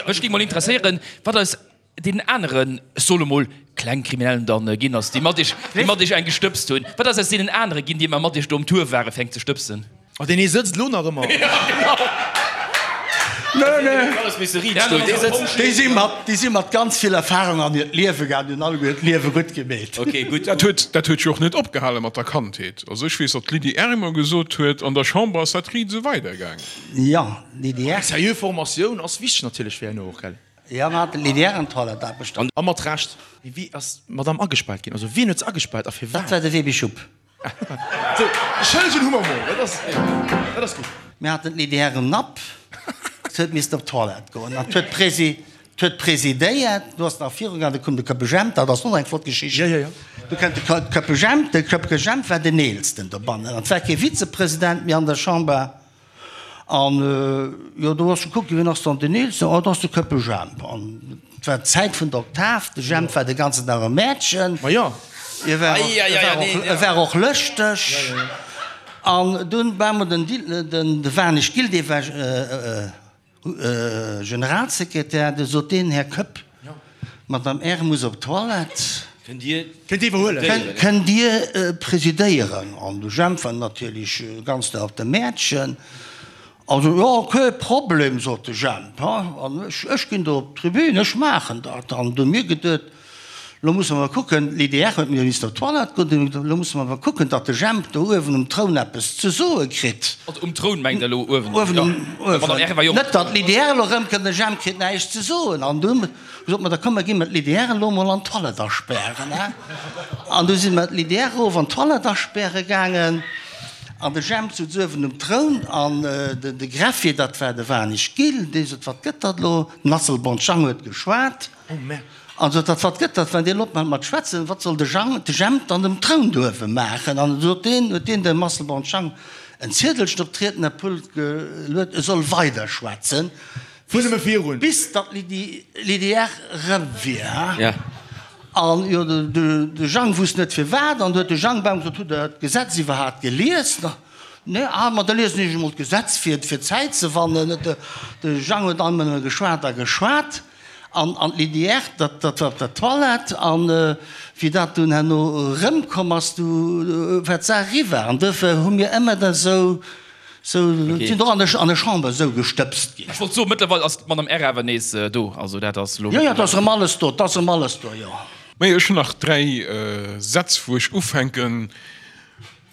Mech géing mol interesséieren, wat aus deenen aneren, ech soe lo mol, Klengkriminellen dann ginn ass, déi mat iech, déi mat iech eng gestëbst hunn. Wat ass aus deenen anere ginn, déi ëmmer mat iech do um Tour ware fir eng ze stëbsen? Oh, deen ee sëtzt elo nach ëmmer. Nö, nö. Déi si mat, déi si mat ganz vill Erfahrung an hiert Liewe gaangen, hunn alleguer hiert Liewe gutt gemeet. Ok, gutt. Dat huet, dat huet jo och net opgehale mat der Kandheet. Also ech weess, datt d'Lydie Err ëmmer gesot huet, an der Chamber ass dat riit esou weidergaangen. Jo, d'Lydie Err. Eng seriö Formatioun ass wichteg natierlech fir herno och, gell? Jo, mer haten d'Lydie Err an d'Toilettaarbechter. A mat Recht. Mee wéi ass d'Madame agespaart ginn? Also wien huet se agespaart a firwat? Dat war de Webi Schupp. Sou, Schëllegen hu mer mol, dat ass, dat ass gutt. Mir haten d'Lydie Err um Napp, se huet missten op d'Toilette goen an huet d'Presi. Huet presidéiert, du ass nach viru gaangen, du koum de Köppe Jemp, dat ass och eng flott Geschicht. Jo, jo, jo. Du kënnt de Köppe Jemp, de Köppe Jemp war den Eelsten dobannen an et war kee Vizepresident méi an der Chamber. An jo, do ass gekuckt ginn, wien ass dann den Eelsten? Oh, dat ass de Köppe Jemp. An et war d'Zäit vun der Oktav, de Jemp war de ganzen Dag am Mäertchen. Ma jo. E war och, e war och, e war och lëschteg. An dunn war emol den Dil, den, de Warnig Gilles, dee war Generalsekretär, du sot deen, Här Koepp, d'Madame Err muss op d'Toilette. Kënnt Dir Kënnt Dir iwwerhuelen? Kënnt Dir presidéieren? An de Jemp war natierlech ganz no op dem Mäertchen. Also, jo, kee Problem, sot de Jemp, an ech ginn do op d'Tribün, ech maachen dat. An du hu mir geduet, Lo musse mer kucken, l'IDR huet mir missen op d'Toilette goen, lo musse mer awer kucken, datt de Jemp do uewen um Troun eppes ze soe kritt. Also um Troun mengt Der elo uewen? Uewen um, uewen. Net datt l'IDR elo erëmkënnt, de Jemp kritt näischt ze soen. An du sot mer, da komm mer gi mer d'LIDR elo mol an d'Toilette aspären, he. An du si mer d'LIDR erof an d'Toilette aspäre gaangen an de Jemp sutz uewen um Troun an de Greffier, dat war de Wanig Gilles, dee sot, wat gëtt dat elo? Den Asselborn Jang huet geschwat. An sot, Dat wat gëtt dat, wann deen opmacht mat schwätzen, wat soll de Jang, de Jemp dann um Troun do uewe maachen? An sot deen, huet deen dem Asselborn Jang en Ziedelchen op d'Riednerpult geluet, e soll weider schwätzen, bis datt d'Lydie erëm wier. An jo, de Jang wusst net firwat, an du huet de Jang bam gesot, Hutt Der d'Gesetz iwwerhaapt gelies? Nee, ah, ma da liesen ech emol d'Gesetz fir, fir Zäit ze wannen. De Jang huet alt nëmme geschwat a geschwat. An an d'Lydie Err, dat dat war op der Toilette. An wéi dat dunn herno erëmkomm ass, du war d'Saach eriwwer. An duerfir hu mir ëmmer da sou, sou, sinn och an der an der Chamber esou gestëbst ginn. Ech wollt soen, mëttlerweil ass d'Madame Err awer nees do. Also dat ass elo. Jo, jo, et ass erëm alles do, et ass erëm alles do, jo. Majo, ech hunn nach 3 Sätz, wou ech ufänken,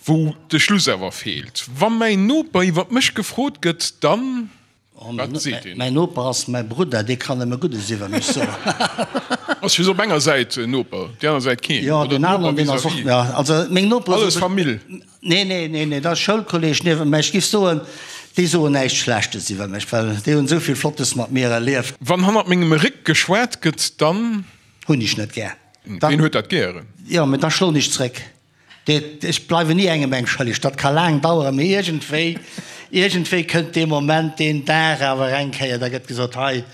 wou de Schluss awer feelt. Wa mäin Noper iwwer mech gefrot gëtt, dann. Wat seet een? Mäin Noper ass mäi Brudder, dee kann nëmme Guddes iwwer mech soen. Ass just op enger Säit en Noper, déi aner Säit keen? Jo, Oder deen Noper aneren, deen ass och, vis-à-vis? jo, also meng Nopere Alles Famill? Nee, nee, nee, nee, dat ass Schoulkolleg niewent mär. Ech giff soen, déi soen näischt Schlechtes iwwer mech, well déi hunn esou vill Flottes mat mir erlieft. Wann hannert mengem Réck geschwat gëtt, dann. Hunn ech net gär. Ween huet dat gären? Jo, mä da schloen ech zréck. Ech bleiwen ni engem eng schëlleg. Dat ka laang daueren, mee iergendwéi, iergendwéi kënnt dee Moment, deen Dag awer eng Kéier, da gëtt gesot, hei,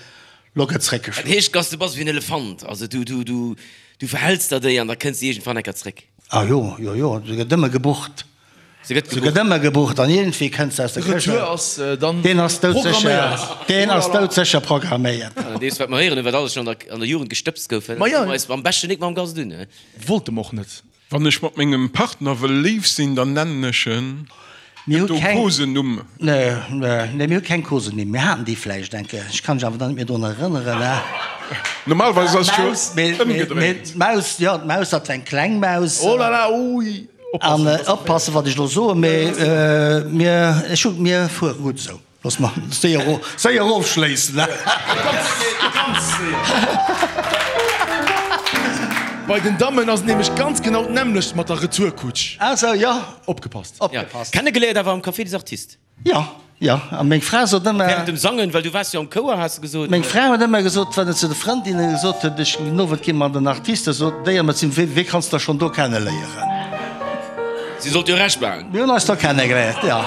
lo gëtt Dat zréckgeschloen. heescht, Gast, du bass ewéi en Elefant, also du, du, du, du verhäls der déi an da kënns de iergendwann eng Kéier zréck. Ah jo, jo, jo, se gëtt ëmmer gebucht. Se gëtt Se gëtt gebucht. ëmmer gebucht an iergendwéi kënns de aus der Këscht. Retour ass dann Deen ass doudsécher, programméiert. deen ass doudsécher programméiert. An deems, wat mer héieren hunn, wat alles schonn an der, an der Jugend gestëbst gouf, Ma jo. hu mer eis am beschten nik mam Gast un, he? Wollte mer och net. Wann ech mat mengem Partner wëll léif sinn, dann nennen ech en. Mir Gëtt hu do keng. Kosenumm? Nee, nee, mir hu keng Kosenumm. Mir haten déi vläicht eng Kéier, ech kann mech awer dann net méi drun erënneren. Normalerweis ass et jo D'Maus, mee, mee, mee ëmgedréint. d'Maus, jo, d'Maus, dat war eng kleng Maus. Oh la la, ui, An oppassen, dass oppassen, wat ech elo soen, mee mir, ech hu, mir fuere gutt esou. Looss mer séier, séier ofschléissen. Ganz séier. Bei den Dammen ass et nämlech ganz genau d'nämmlecht mat der Retourkutsch. Ah sou, jo. Opgepasst. Opgepasst. Kennegeléiert awer am Café des Artistes. Jo, jo. A meng Fra sot ëmmer. Während dem Sangen, well du waars jo am Chouer, has de gesot. Meng Fra huet ëmmer gesot, wann et zu de Frëndinne gesot huet, ech den Owend gi mer an den Artistes, sot déi ëmmer zu mir, Wee kanns de schonn do kenneléieren? Si sollt jo Recht behalen. Mir hunn eis da kennegeléiert, jo.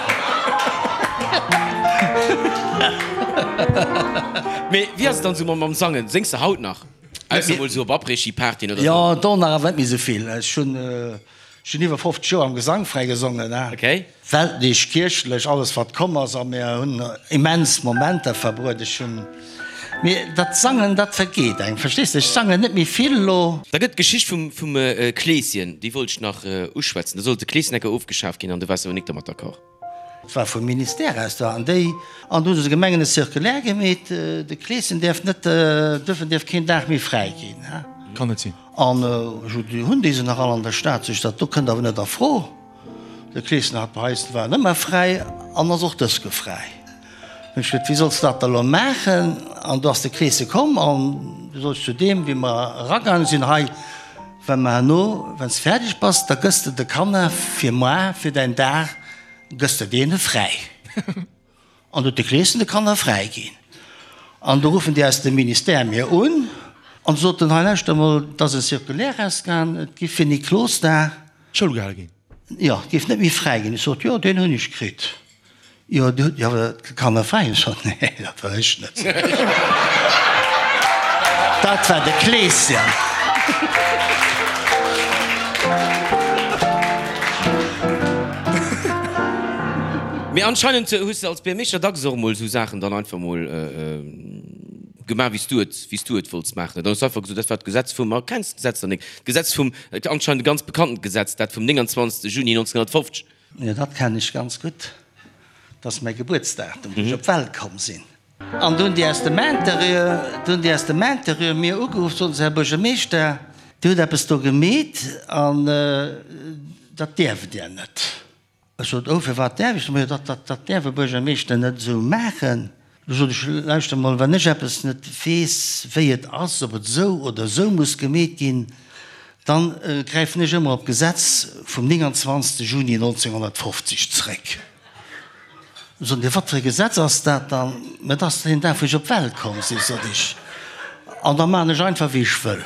Mee wéi ass et dann esou mam Sangen? Séngs de haut nach? Ausser mol esou op Après-Ski-Partyen oder esou? Jo, do nach awer net méi esou vill. Ech hunn, ech hunn iwwer 50 Joer am Gesangveräi gesongen, ne. Okay. Weltlech, kierchlech, alles wat komm ass a mir hunn immens Momenter verbruet. Ech hunn, mee dat Sangen, dat vergeet engem, verstees de? Ech sangen net méi vill elo. Da gëtt d'Geschicht vum vum Kleeschen, déi wollt ech nach uschwätzen. Do sollt de Kleesenecker ofgeschaf ginn an du waars awer nik dermat d'accord. Et war vum Ministère aus do an déi, an do hu se de Gemengen e Circulaire gemeet, de Kleeschen däerf net, dürfen dierf keen Dag méi fräi ginn. Kann net sinn. An ech hunn déi se nach all an der Stad, sou ech dat do kënnt awer net a Fro. De Kleeschen hat bei eis war ëmmer fräi an ass och dës Ke fräi. Hunn ech gesot, wéi solls de dat da lo maachen? An do ass de Kleesche komm an du sot ech zu deem, wéi mer eragaange sinn, hei, wa mer herno, wann s de fäerdeg bass, da gëss de de Kanner fir moar, fir däin Dag, gëss de deene fräi. An huet de Kleeschen de Kanner fräi ginn. An do ruffen déi aus dem Ministère mir un an soten, hei lauschter emol, et ass e Circulaire rausgaang, et giff fir Niklosdag. D'Schoul gehale ginn. Jo, et géif net méi fräi ginn. Ech sot, jo, deen hunn ech kritt. Jo, dir hutt jo awer d'Kanner fräi. Ech sot, nee, dat war ech net. Dat war de Kleeschen. Mee anscheinend hues de als Buergermeeschter dacks och emol esou Saachen dann einfach emol gemaach, wéi s du et, wéi s du et wollts maachen. Dann hues du einfach gesot, dat war d'Gesetz vum, ma kenns d'Gesetz dann nik? D'Gesetz vum, anscheinend e ganz bekanntent Gesetz, dat vum 29. Juni 1950. Jo, dat kennen ech ganz gutt. Dat ass mäi Gebuertsdatum, wou ech op d'Welt komm sinn. An do hunn déi aus dem Interieur, do hunn déi aus dem Interieur mir ugeruff, soten se, Här Buergermeeschter, Dir hutt eppes do gemeet an dat däerft Dir net. Ech sot, Oh, firwat däerf ech net? Majo, dat, dat, dat däerf e Buergermeeschter net esou maachen. Du sot ech, Lauschter mol, wann ech eppes net weess, wéi et ass, ob et esou oder esou muss gemeet ginn, dann gräifen ech ëmmer op d'Gesetz vum 29. Juni 1950 zréck. Du sot en, Wat fir e Gesetz ass dat dann? Mä dat ass deen Dag, wou ech op d'Welt komm sinn, sot ech, an da maachen ech einfach, wéi ech wëll.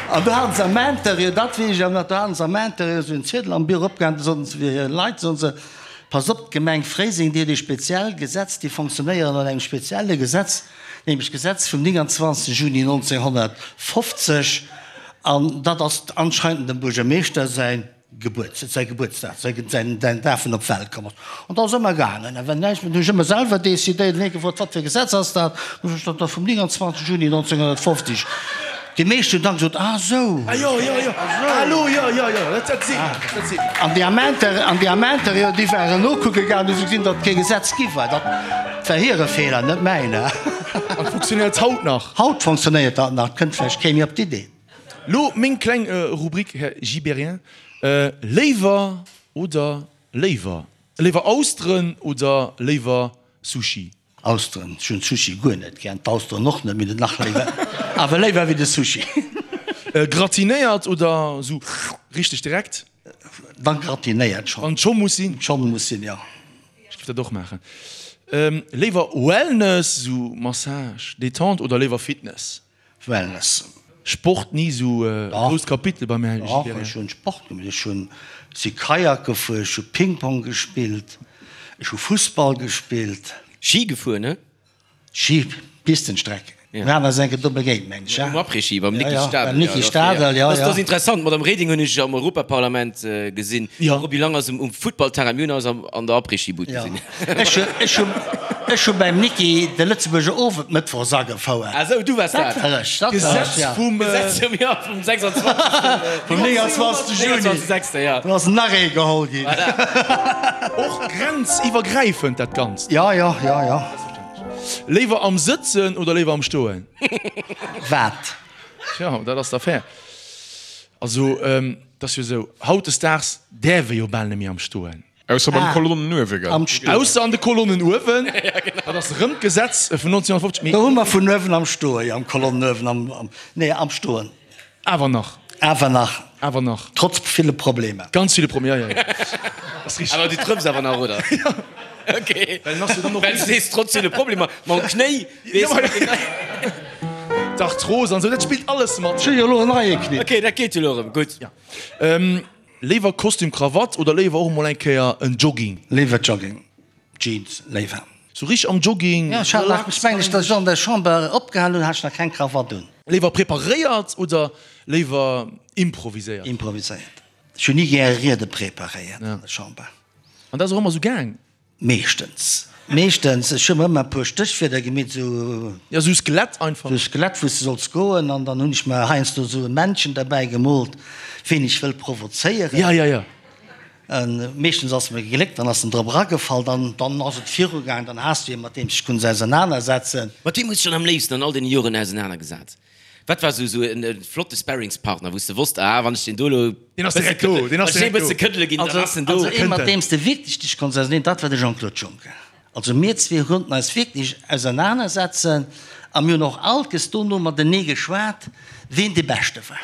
An do haten se am Interieur, dat weess ech awer nach, do haten se am Interieur esou en Ziedel am Büro opgehaangen, do soten se fir hir Leit, soten se, Passt op, d'Gemeng Fréiseng, déi huet ee speziell Gesetz, déi fonctionnéieren no engem spezielle Gesetz, nämlech d'Gesetz vum 29 Juni 1950, an dat ass anscheinend dem Buergermeeschter säin Gebuerts, säi Gebuertsdag, säi, säin, säin Dag vun op d'Welt komm ass. An da ass ëmmer gaangen. A wenn näischt, hunn ech ëmmer selwer decidéiert. Hunn hie gefrot, Wat fir e Gesetz ass dat? Hunn ech gesot, Dat vum 29 Juni 1950. Déi meescht hunn dann gesot, Ah sou. Ah jo, jo, jo. Ah lo, jo, jo, jo. Dat, dat seet mir eppes, dat seet mir eppes. An déi am Inter, an déi am Interieur, déi waren nokucke gaangen, hu se gesinn, datt et kee Gesetz gi war. Dat war hire Feeler, net mäiner. An funktionéiert haut nach? Haut funktionéiert dat nach. Et kënnt vläicht kee méi op d'Idee. Lo meng kleng Rubrik, Här Gibéryen, Léiwer oder léiwer? Léiwer Austeren oder léiwer Sushi? Austeren. Ech hunn Sushi guer net gär, d'Austeren och net, mee nach léiwer, awer léiwer wéi de Sushi. Gratinéiert oder sou richteg direkt? Dann gratinéiert schon. Wann et scho muss sinn? Schon muss sinn, jo. Ech giff dat och maachen. Léiwer Wellness, sou Massage, Détente oder léiwer Fitness? Wellness. Sport ni sou e grousst Kapitel beim Här Dach, ech hunn Sport gemaach. Ech hunn, si Kajak gefuer, ech hu Ping-Pong gespillt, ech hu Fussball gespillt. Ski gefuer, ne? Ski, Pistenstreck. Mir haten eis eng Kéier do begéint, mengen ech, Um Après-Ski beim Nicki Stadel. Beim Nicki Stadel, jo, jo. Dat ass interessant. D'Madame Reding hunn ech am Europaparlament gesinn. Roby Lang ass um Futtballterrain. Mir hunn eis an der Après-Ski-Bud gesinn. Ech hu ech hu beim Nicki de Lëtzebuerger Owend mëttwochs agefouert. Ah sou, du waars dat. Dat war ech, dat war ech, ja. Gesetz vum, jo, vum 26. Vum 29. Juni. 29. Ja. Do ass nach ee geholl ginn. Voilà. Och grenziwwergräifend dat Ganzt. Ja, ja, ja, ja. Léiwer am Sëtzen oder léiwer am Stoen? Wat? Tja, dat ass d'Affär. Also, et ass jo esou, hautdesdaags däerf ee jo bal net méi am Stoen. Ausser beim Kolonnen uewe, gell? Ausser an de Kolonnen uewen, dat ass erëm d'Gesetz vun 1950, mee. Do hu mer vun uewen am Stoen, jo, am Kolonnen uewen, am, nee, am Stoen. Awer nach. Awer nach. Awer nach. Trotz ville Problemer. Ganz ville Problemer, jo, jo, jo. Ass richteg. Awer du trëffs awer nach, oder? Jo. Okay. Well en ass jo dann och. Well du sees, trotz ville Problemer, mam Knéi, weess de. D'Arthros an esou, dat spillt alles mat. Ech hu jo elo en neie Knéi. Okay, dat geet jo elo erëm. Gutt. Jo. Léiwer Kostüm Krawatt oder léiwer och emol eng Kéier en Jogging? Léiwer Jogging, Jeans léiwer. Sou richteg am Jogging, Jo, ech hat nach, ech mengen ech, datt ech an der Chamber opgehal hunn, hat ech nach keng Krawatt un. Léiwer preparéiert oder léiwer improviséiert? Improviséiert. Ech hunn ni gäre Riede preparéiert an der Chamber. An dat ass och ëmmer sou gaang? Meeschtens, meeschtens. Ech hu mer ëmmer e puer Stéchwierder gemeet, esou. Jo, esou Skelett einfach. Esou Skelett, wou s de solls goen. An dann hunn ech mer heiansdo esou e Männchen derbäi gemoolt, ween ech wëll provozéieren. Ja, ja, ja. Meeschtens ass et mer gegléckt, dann ass en drop eragefall, dann, dann ass et virugaang, dann has du ee mat deem s de dech konns ausernanersetzen. Mat weem hues de dech dann am léifsten an all deene Joren ausenanergesat? Wat war sou en flotte Sparringspartner, wou s de wosst, ah, wann ech deen do elo Deen ass direkt do, deen ass direkt do. bësse këddele ginn, dann ass en do. Also ee mat deem s de wierklech dech konns auseneen, dat war de Jean-Claude Juncker. Also mir zwee konnten eis wierklech ausernanersetzen a mir hunn och alkes dono matenee geschwat, ween dee Beschte war.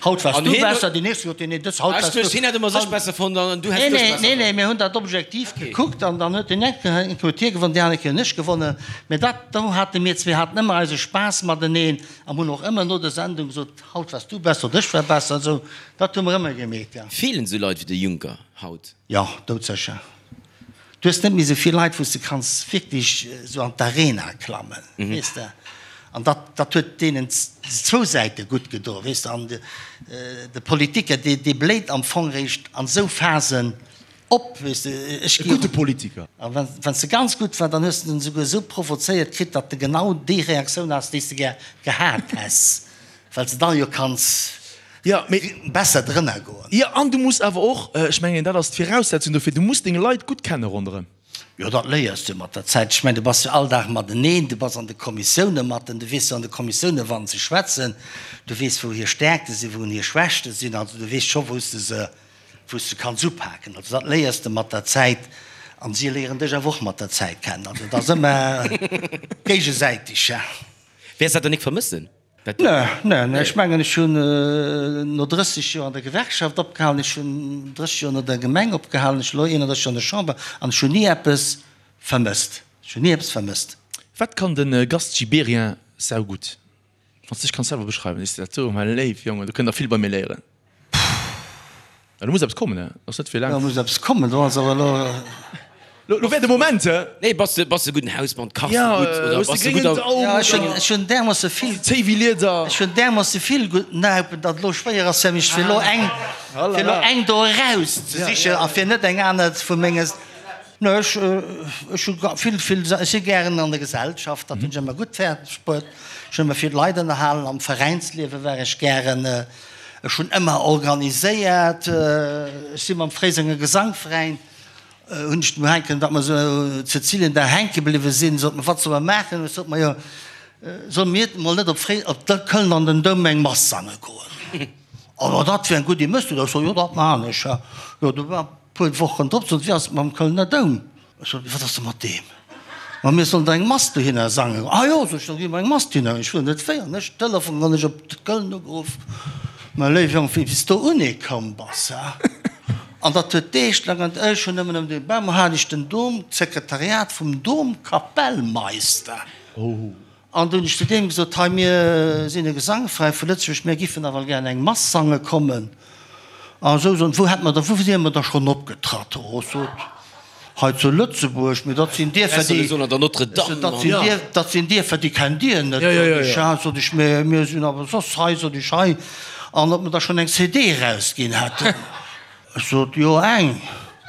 Haut wars du besser, déi nächst huet deen een dës, haut wars du. Hien hätt ëmmer sech besser fonnt an du häss dech besser fonnt. Nee, nee, mir hunn dat objektiv gekuckt an dann huet deen eng Kéier huet hie gewonnen, déi aner Kéier hunn ech gewonnen. Mä dat, do hate mir zwee haten ëmmer eise Spaass mateneen an hunn och ëmmer no der Sendung gesot, haut wars du besser oder ech war besser an esou. Dat hu mer ëmmer gemeet, jo. Feelen esou Leit wéi de Juncker haut? Jo, doudsécher. Du hues net méi esou vill Leit, wou s de kanns wierklech esou an d'Arena klammen, weess de. An dat, dat huet deenen zwou Säite gutt gedo, weess de. An de Politiker, dee, dee bléit am Fong réischt an esou Phasen op, weess de. Ech E gudde Politiker. A wann, wann s de ganz gutt war, dann hues de en esouguer esou provozéiert kritt, datt de genau déi Reaktioun has, déi s de gär gehat häss. Well s de dann jo kanns besser drënner goen. Jo, an du muss awer och, ech mengen dat ass d'Viraussetzung dofir, du muss deng Leit gutt kenne ronderëm. Jo, dat léiers du mat der Zäit. Ech mengen, du bass jo all Dag mateneen, du bass an de Kommissioune matten, du weess jo an de Kommissioune wann se schwätzen, du weess wou hir Stäerkte sinn, wou hir Schwächte sinn, also du weess scho wou s de se, wou s de kanns upaken. Also dat léiers de mat der Zäit an si léieren dech awer och mat der Zäit kennen. Also et ass ëmmer géigesäiteg. Wäers dat dann nik vermëssen? Nee, nee, nee. Ech mengen, ech hunn no 30 Joer an der Gewerkschaft opgehalen, ech hunn 30 Joer no der Gemeng opgehalen, ech elo 31 Joer an der Chamber an ech hunn ni eppes vermësst. Ech hunn ni eppes vermësst. Wat kann de Gast Gibéryen saugutt? Wann s de dech kanns selwer beschreiwen, sees de dat do, mäi léif Jongen, do kënnt der vill bei mir léieren. Ja, do muss eppes kommen, he? Ass net fir laang. Do muss eppes kommen, do ass awer elo. Lo wär de Moment, he? Nee, bass de, bass de gudden Hausmann, kachs de gutt oder bass de gutt am. Ja, ech hunn, ech hunn därmoosse vill. Zéi wéi Lieder. Ech hunn därmoosse vill gutt Naupen, datt elo schwéier ass fir mech, fir elo eng, fir elo eng do eraus ze sichen a fir net eng aner vu menge. Nee, ech, ech hu vill, vill, ech si gären an der Gesellschaft, dat hunn ech ëmmer gutt fäerdeg bruet. Ech hunn ëmmer vill Leit ënnerhalen, am Veräinsliewe war ech gären. Ech hunn ëmmer organiséiert, ech si mam Fréisenger Gesangveräin, hunn ech dem hänken, datt mer esou Cäcilien da hänke bliwwe sinn, sot mer, wat solle mer maachen? Ech sot, majo, solle mir mol net op Fré, op Köln an den Doum eng Mass sange goen? Oh, dat wier eng gutt Idee, méchs du dat? Ech sot, jo, dat maachen ech. Jo, du war. Puer Wochen drop sot, Wéi ass et mam Kölner Doum? Ech sot, Wat ass da mat deem? Ma mir sollen da eng Mass dohinner sangen. Ah jo, sot ech, da gi mer eng Mass dohinner. Ech wuel net wéi. An ech Telefon an ech op Köln ugeruff, Mäi léiwe Jong, wéi s do unekomm bass, ha? An dat huet Deeg laang an ech hunn nëmmen ëm dee Bam hat ech den Dom, d'Sekretariat vum Domkapellmeister. An du hunn ech zu deem gesot, Hei, mir sinn e Gesangveräin vu Lëtzebuerg, mir giffen nawell gären eng Mass sange kommen. A esou soen, wou hätt mer da, wou wier mer da schonn opgetratt? Oh, ech sot, hei zu Lëtzebuerg, mee dat sinn Dierfer, déi, dat sinn Dierfer, dat sinn Dierfer, déi kennt Dir net, sot ech. Ja, sot ech, mee mir sinn awer soss hei, sot ech, hei. An ob mer da schonn eng CD erausginn hätten. Ech sot, Jo, eng.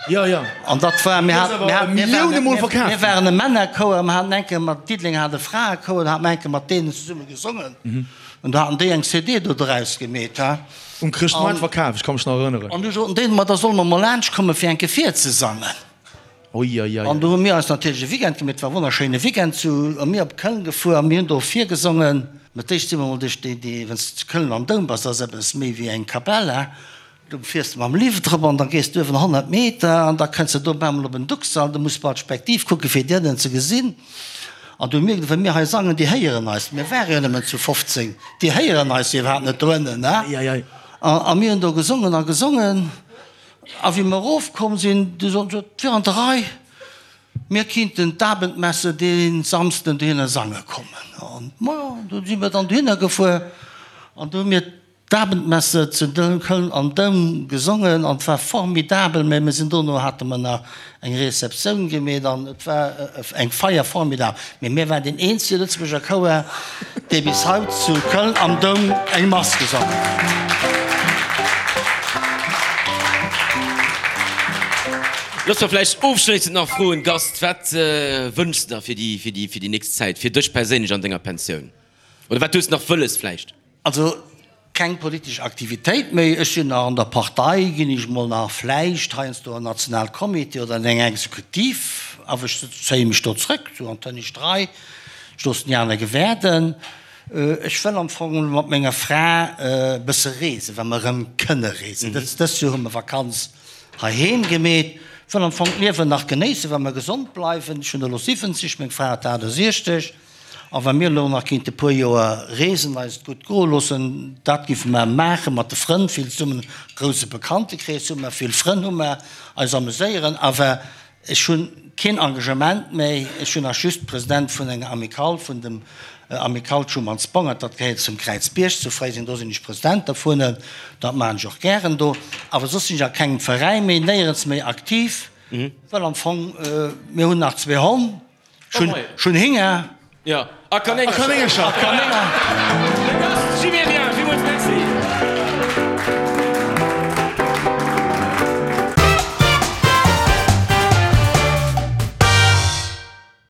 Jo, jo. An dat war, mir haten, mir haten, mir Millioune Mol verkaf. Mir waren e Männerchouer, mir haten eng Kéier mat, Diddeleng hat e Fraechouer, da hate mer eng Kéier mat deenen zesumme gesongen. An do haten déi eng CD do draus gemeet, ha. Um Chrëschtmoart verkaf, ech ka mech nach erënneren. An du soten déi, ma da solle mer mol laanscht komme fir eng Kéier virzesangen. Oi, oi, oi. An do hu mir eis natierlech e Weekend gemeet, et war e wonnerschéine Weekend zu, a mir op Köln gefuer a mir hunn do virgesongen. Mä d'éischt si mer mol duerch déi, déi, wann s de zu Köln am Doum bass, dat ass eppes méi wéi eng Kapell, ha. Du fiers mam Lift erop an da gees du uewen 100 Meter an da kënns de do op eemol op en Duxall. Du muss bal d'Spektiv kucke fir déi ënnen ze gesinn. An du mierks, wa mir hei sangen, déi héieren eis. Mir ware jo nëmmen zu 15, déi héieren eis iwwerhaapt net do ënnen. A mir hunn do gesongen a gesongen. A wéi mir erofkomm sinn, du soten se, et wier an der Rei, mir kinnten d'Abendmesse dee Samsden dohinner sange kommen. An majo, du si mir dann dohinner gefuer an du hu mir D'Abendmesse zu Köln am Doum gesongen an et war formidabel, mä mir sinn dono hate mer nach eng Receptioun gemeet an et war eng Feier formidabel, mä mir waren deen eenzege Lëtzebuerger Chouer, dee bis haut zu Köln am Doum eng Mass gesongen huet. Looss mer vläicht ofschléissend nach froen, Gast, wat wënschs de der fir déi, fir déi, fir déi nächst Zäit, fir dech perséinlech an denger Pensioun? Oder wat hues de nach wëlles vläicht? Also keng politesch Aktivitéit méi. Ech sinn nach an der Partei, ginn ech mol nach vläicht heiansdo an Nationalcomité oder an eng Exekutiv, awer ech zéie mech do zrëck, sou an d'hënnescht Rei, ech loossen déi aner gewäerden. Ech wëll am Fong mat menger Fra e bësse reesen, wa mer erëm kënne reesen. Dëst Joer hu mer Vakanz heiheem gemeet. Wëll am Fong d'Liewen nach genéissen, wa mer gesond bleiwen. Ech hunn elo 70, meng Fra huet 68. A wa mir elo nach kéinte puer Joer reesen, eis et gutt goe loossen, dat géife mer maachen, mat de Frënn vill zesummen, grousse Bekanntekrees hu mer, vill Frënn hu mer, eis ameséieren. Awer ech hu keen Engagement méi, ech hunn nach just President vun enger Amicale, vun dem Amicale Schumanns-Bongert, dat gehéiert zum Kräizbierg zu Fréiseng, do sinn ech President dervun, dat maachen ech och gären do. Awer soss sinn ech a kengem Veräin méi, néierens méi aktiv, well am Fong, mir hunn nach zwee Honn. Ech hunn Hinger. Ja, a Kanéngercher. A Kanéngercher.